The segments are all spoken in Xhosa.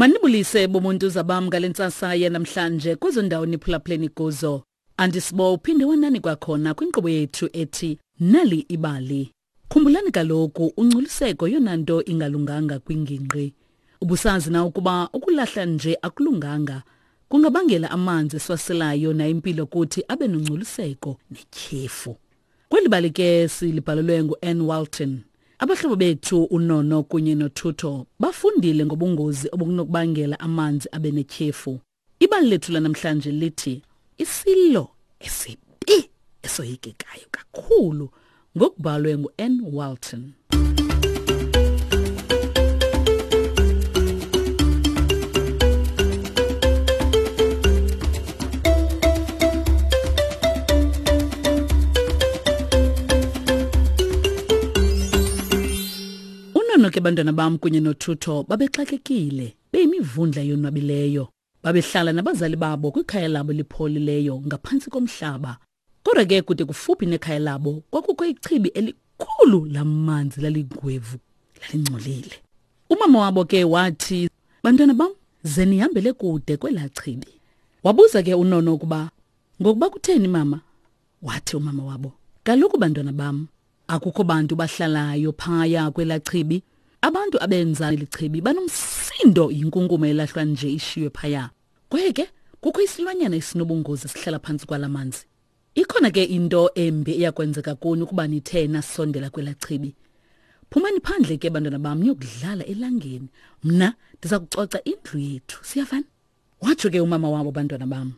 Manibulise bomuntu zabam ngale ntsasa yanamhlanje kwezo ndawo niphulaphuleni kuzo. Andisibo uphinde wanani kwakhona kwinkqubo yethu ethi Nali Ibali. Khumbulani kaloku ungcoliseko yona nto ingalunganga kwingingqi. Ubusazi na ukuba ukulahla nje akulunganga kungabangela amanzi esiwaselayo nayimpilo kuthi abe nongcoliseko netyhefu. Kweli bali ke silibhalelwe ngu-Ann Walton. Abahlobo bethu uNono kunye noThutho bafundile ngobungozi obunokubangela amanzi abe netyhefu. Ibali lethu lanamhlanje lithi isilo esibi esoyikekayo kakhulu ngokubhalwe ngu-Ann Walton. Unono ke bantwana bam kunye noThutho babexakekile beyimivundla yonwabileyo. Babehlala nabazali babo kwikhaya labo elipholileyo ngaphantsi komhlaba. Kodwa ke kude kufuphi nekhaya labo kwakukho ichibi elikhulu lamanzi laligwevu lalingcolile. Umama wabo ke wathi, "Bantwana bam, ze nihambele kude kwelaa chibi." Wabuza ke uNono ukuba, "Ngokuba kutheni mama?" Wathi umama wabo, "Kaloku bantwana bam, akukho bantu bahlalayo phaya kwelaa chibi. Abantu abenza eli chibi banomsindo yinkunkuma elahlwa nje ishiywe phaya. Kwaye ke kukho isilwanyana esinobungozi esihlala phantsi kwala manzi. Ikhona ke into embi eyakwenzeka kuni ukuba nithe nasondela kwelaa chibi. Phumani phandle ke bantwana bam niyokudlala elangeni. Mna ndiza kucoca indlu yethu. Siyavana? Watsho ke umama wabo bantwana bam.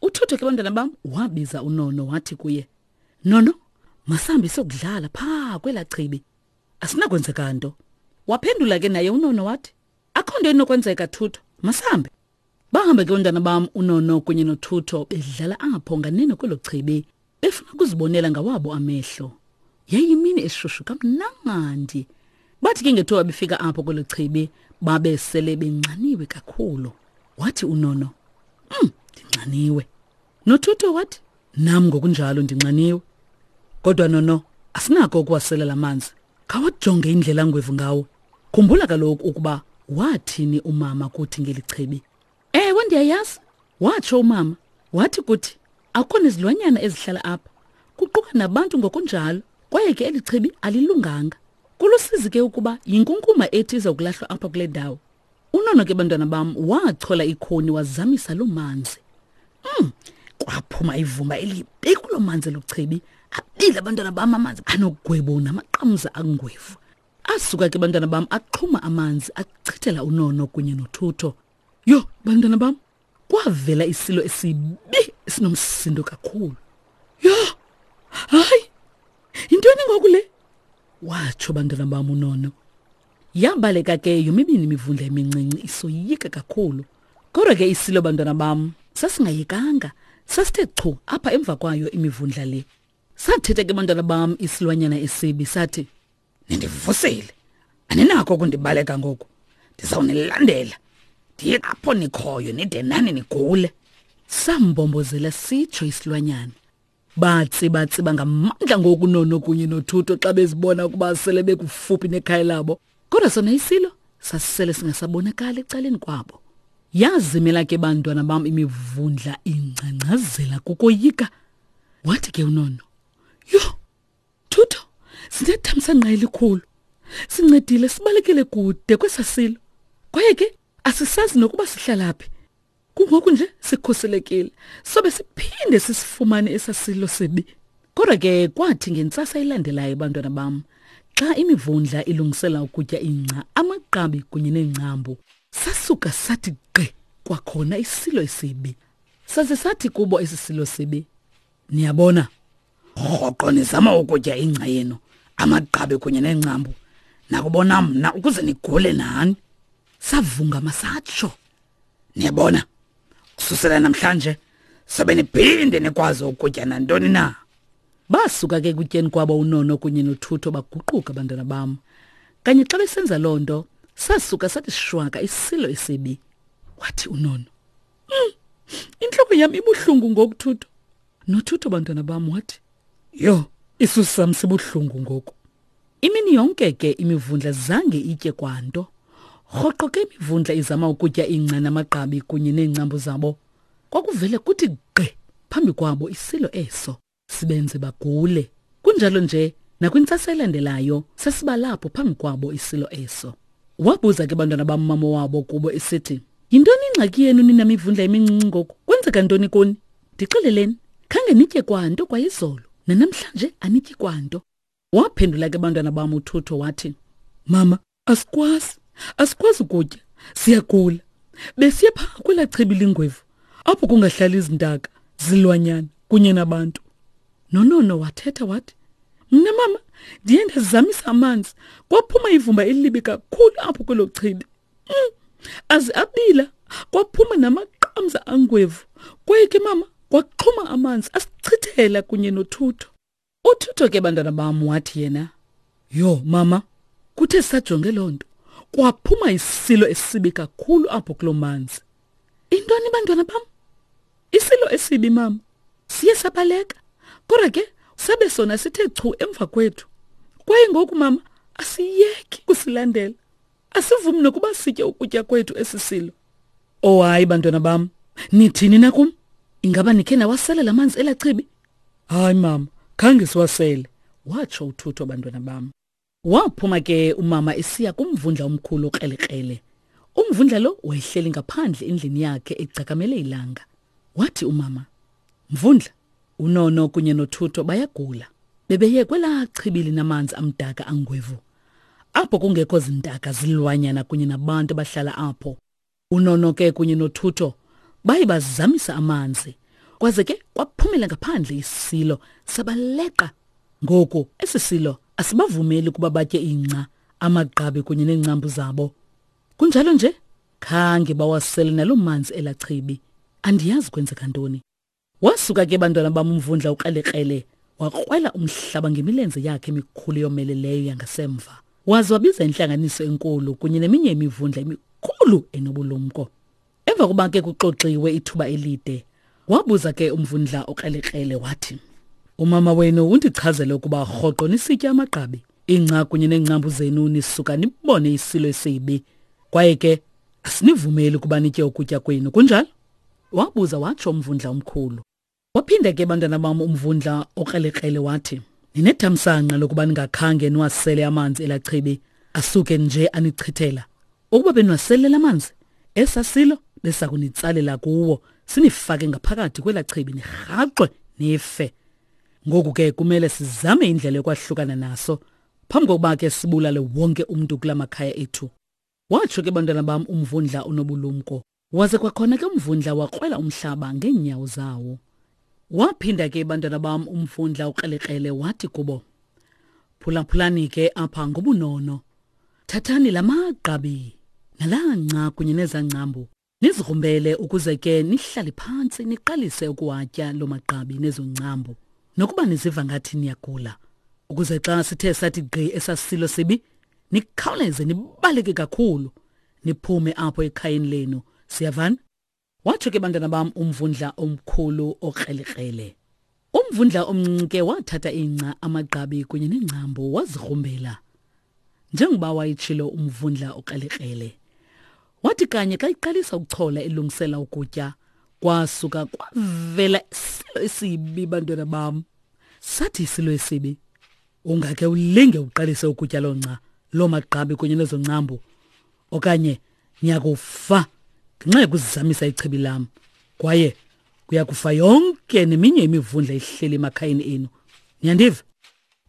Uthutho ke bantwana bam wabiza uNono wathi kuye, Nono, masihambe siyokudlala phaa kwelaa chibi. Asinakwenzeka nto. Waphendula ke naye uNono wathi, Akho nto inokwenzeka Thutho, masihambe. Bahamba ke ontana bam uNono kunye noThutho bedlala apho nganeno kwelo chibi, befuna ukuzibonela ngawabo amehlo. Yayimini eshushu kamnandi. Bathi ke ngethuba befika apho kwelo chibi, babe sele benxaniwe kakhulu. Wathi uNono, ndinxaniwe. Nothutho wathi, nam ngokunjalo ndinxaniwe. Kodwa Nono, asinako ukuwasela la manzi. Khawajonge indlela angwevu ngawo. Khumbula kaloku ukuba wathini umama kuthi ngeli chibi. Ewe, ndiyayazi, watsho umama. Wathi kuthi akukho nezilwanyana ezihlala apha, kuquka nabantu ngokunjalo, kwaye ke eli chibi alilunganga. Kulusizi ke ukuba yinkunkuma ethi iza kulahlwa apha kule ndawo. Unono ke bantwana bam wachola ikhoni wazamisa loo manzi. Kwaphuma ivumba elibi kuloo manzi eluchibi. Abile abantwana bam amanzi anogwebo namaqamza angwevu. Asuka ke bantwana bam axhuma amanzi achithela uNono kunye noThutho. Yho, bantwana bam, kwavela isilo esibi esinomsindo kakhulu. Yho, hayi, yintoni ngoku le? Watsho bantwana bam uNono. Yabaleka ke yomibini imivundla emincinci isoyika kakhulu. Kodwa ke isilo bantwana bam sasingayekanga, sasithe chu apha emva kwayo imivundla le. Sathetha ke bantwana bam isilwanyana esibi sathi, Nindivusile, aninakho ukundibaleka ngoku, ndizawunilandela ndiye apho nikhoyo nide nani nigule. Sambombozela sitsho isilwanyana. Batsibatsiba ngamandla ngoku Nono kunye noThuto xa bezibona ukuba sele bekufuphi nekhaya labo. Kodwa sona isilo sasisele singasabonakali ecaleni kwabo. Yazimela ke bantwana bam imivundla ingcangcazela kukoyika. Wathi ke uNono, Yho, Thutho, sinethamsanqa elikhulu. Sincedile sibalekele kude kwesasilo. Kwaye ke asisazi nokuba sihlala phi. Kungoku nje sikhuselekile. Sobe siphinde sisifumane esasilo sibi. Kodwa ke kwathi ngentsasa elandelayo bantwana bam, xa imivundla ilungisela ukutya ingca, amagqabi kunye neengcambu, sasuka sathi gqi kwakhona isilo esibi. Saze sathi kubo esi silo sibi, Niyabona, rhoqo nizama ukutya ingca yenu, amagqabi kunye neengcambu, nakubona mna ukuze nigule nani. Savungama satsho. Niyabona, kususela namhlanje sobe niphinde nikwazi ukutya nantoni na. Basuka ke kutyeni kwabo uNono kunye noThutho baguquka abantwana bam. Kanye xa besenza loo nto, sasuka sathi shwaka isilo esibi. Wathi uNono, intloko yam ibuhlungu ngoku Thutho. Nothutho bantwana bam wathi, yho, isisu sam sibuhlungu ngoku. Imini yonke ke imivundla zange itye kwanto. Rhoqo ke imivundla izama ukutya ingca namagqabi kunye neengcambu zabo. Kwakuvele kuthi gqi phambi kwabo isilo eso, sibenze bagule. Kunjalo nje nakwintsasa elandelayo sasibalapho phambi kwabo isilo eso. Wabuza ke bantwana bam mama wabo kubo esithi, Yintoni ingxaki yenu nina mivundla emincinci ngoku? Kwenzeka ntoni kuni? Ndixeleleni, khange nitye kwanto kwayizolo, nanamhlanje anityi kwanto. Waphendula ke bantwana bam uThutho wathi, Mama, asikwazi, asikwazi ukutya, siyagula. Besiye phaa kwelaa chibi lingwevu, apho kungahlali izintaka, zilwanyana kunye nabantu. Nonono wathetha wathi, Mna mama, ndiye ndazamisa amanzi, kwaphuma ivumba elibi kakhulu apho kwelo chibi. Mm, aze abila, kwaphuma namaqamza angwevu. Kwaye ke mama, kwaxhuma amanzi asichithela kunye nothutho. Uthutho ke bantwana bam wathi yena, Yho mama, kuthe sajonge loo nto kwaphuma isilo esibi kakhulu apho kuloo manzi. Intoni bantwana bam? Isilo esibi mama. Siye sabaleka. Kodwa ke sabe sona sithe chu emva kwethu. Kwaye ngoku mama asiyeki kusilandela. Asivumi nokuba sitye ukutya kwethu esi silo. Oh hayi bantwana bam, nithini na kum? Ingaba nikhe nawasela la manzi elachibi? Hayi mama, khange siwasele, watsho uThutho bantwana bam. Waphuma ke umama esiya kumvundla omkhulu okrelekrele. Umvundla lo wayehleli ngaphandle endlini yakhe egcakamele ilanga. Wathi umama, Mvundla, uNono kunye noThutho bayagula. Bebeye kwelaa chibi linamanzi amdaka angwevu. Apho kungekho zintaka zilwanyana kunye nabantu abahlala apho. Unono ke kunye noThutho baye bazamisa amanzi. Kwaze ke kwaphumela ngaphandle isilo sabaleqa. Ngoku esi silo asibavumeli ukuba batye ingca, amagqabi kunye neengcambu zabo. Kunjalo nje khange bawasele naloo manzi elachibi. Andiyazi kwenzeka ntoni. Wasuka ke bantwana bam umvundla ukrelekrele wakrwela umhlaba ngemilenze yakhe emikhulu yomeleleyo yangasemva. Waze wabiza intlanganiso enkulu kunye neminye imivundla emikhulu enobulumko. Emva kokuba ke kuxoxiwe ithuba elide, wabuza ke umvundla okrelekrele wathi, Umama wenu undichazele ukuba rhoqo nisitya amagqabi, ingca kunye neengcambu zenu nisuka nibone isilo esibi. Kwaye ke asinivumeli ukuba nitye ukutya kwenu, kunjalo? Wabuza watsho umvundla omkhulu. Waphinda ke bantwana bam umvundla okrelekrele wathi, Ninethamsanqa lokuba ningakhange niwasele amanzi elachibi asuke nje anichithela. Ukuba beniwaselele amanzi, esasilo besakunitsalela kuwo sinifake ngaphakathi kwelachibi nirhaxwe nife. Ngoku ke kumele sizame indlela yokwahlukana naso phambi kokuba ke sibulale wonke umntu kula makhaya ethu. Watsho ke bantwana bam umvundla onobulumko. Waze kwakhona ke umvundla wakrwela umhlaba ngeenyawo zawo. Waphinda ke bantwana bam umvundla ukrelekrele wathi kubo, Phulaphulani ke apha ngobunono. Thathani la magqabi nalaa nca kunye nezaa ngcambu nizigrumbele ukuze ke nihlale phantsi niqalise ukuwatya loo magqabi nezo ngcambu nokuba niziva ngathi niyagula ukuze xa sithe sathi gqi esasilo sibi nikhawuleze nibaleke kakhulu niphume apho ekhayeni lenu siyavana watsho ke bantwana bam umvundla omkhulu okrelekrele umvundla omncinci ke wathatha ingca amagqabi kunye nengcambu wazigrumbela njengoba wayetshilo umvundla okrelekrele wathi kanye xa iqalisa ukuchola ilungisela ukutya kwasuka kwavela isilo esibi bantwana bam sathi isilo esibi Ungakhe ulinge uqalise ukutya loo nca, loo magqabi kunye nezo ncambu, okanye niyakufa ngenxa yokuzizamisa ichibi lam, kwaye kuya kufa yonke neminye imivundla ihleli emakhayeni enu. Niyandiva?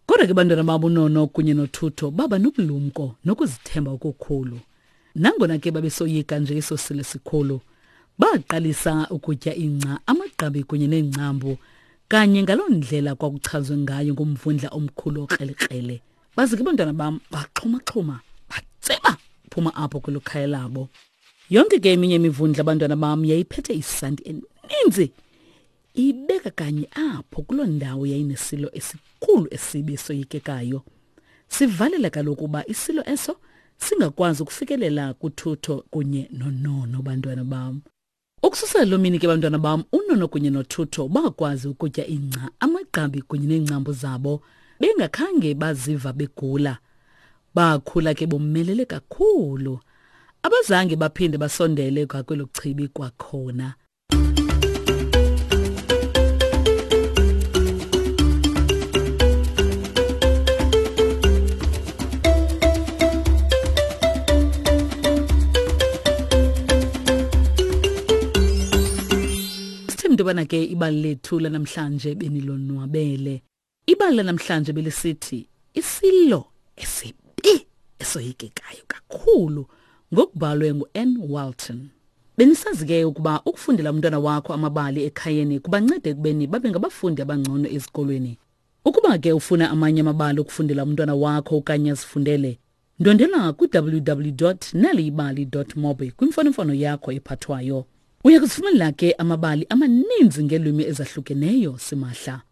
Kodwa ke bantwana babo uNono kunye noThutho baba nobulumko nokuzithemba okukhulu. Nangona ke babesoyika nje eso silo sikhulu, baqalisa ukutya ingca, amagqabi kunye neengcambu, kanye ngaloo ndlela kwakuchazwe ngayo ngumvundla omkhulu okrelekrele. Baze ke bantwana bam baxhumaxhuma, batseba phuma apho kwelo khaya labo. Yonke ke eminye imivundla abantwana bam yayiphethe isanti eninzi Ibeka kanye apho kuloo ndawo yayinesilo esikhulu esibi esoyikekayo. Sivalela kaloku uba isilo eso singakwazi ukufikelela kuthutho kunye nonono bantwana bam. Ukususela loo mini ke bantwana bam unono kunye nothutho bakwazi ukutya ingca, amagqabi kunye neengcambu zabo bengakhange baziva begula. Bakhula ke bomelele kakhulu. Abazange baphinde basondele kwakwelo chibi kwakhona. Sithembe intobana ke ibali lethu lanamhlanje benilonwabele. Ibali lanamhlanje belisithi isilo esibi esoyikekayo kakhulu ngokubhalwe ngu-Ann Walton. Benisazi ke ukuba ukufundela umntwana wakho amabali ekhayeni kubanceda ekubeni babe ngabafundi abangcono ezikolweni. Ukuba ke ufuna amanye amabali okufundela umntwana wakho okanye azifundele, ndwendela kwi-www.naliyibali.mobi kwimfonomfono yakho ephathwayo. Uya kuzifumanela ke amabali amaninzi ngeelwimi ezahlukeneyo simahla.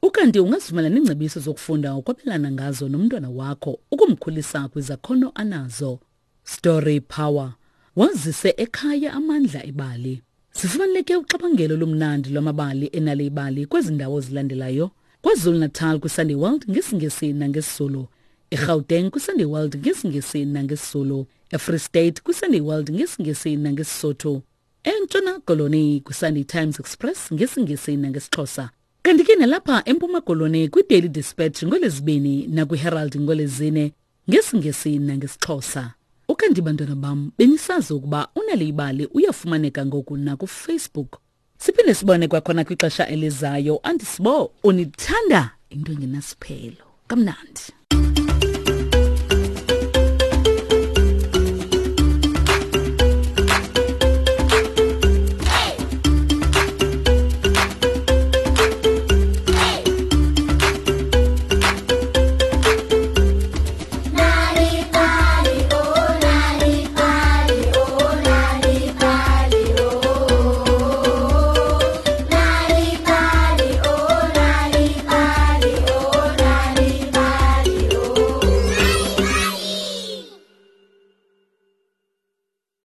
Ukanti ungazifumana neengcebiso zokufunda ukwabelana ngazo nomntwana wakho ukumkhulisa kwizakhono anazo. Story Power. Wazise ekhaya amandla ebali. Sifumaneke uxabangelo olumnandi lwamabali enale ibali kwezi ndawo zilandelayo. KwaZulu-Natal kwiSunday World ngesiNgesi nangesiZulu. eGauteng kwiSunday World ngesiNgesi nangesiZulu. eFree State kwiSunday World ngesiNgesi nangeSisotho. ENtshona Koloni kwiSunday Times Express ngesiNgesi nangesiXhosa. Kanti ke nalapha eMpuma Koloni kwiDaily Dispatch ngolwezibini nakwiHerald ngolwezine ngesiNgesi nangesiXhosa. Ukanti bantwana bam benisazi ukuba unaliyibali uyafumaneka ngoku nakufacebook. Siphinde sibone kwakhona kwixesha elizayo. Andisibo unithanda into engenasiphelo. Kamnandi.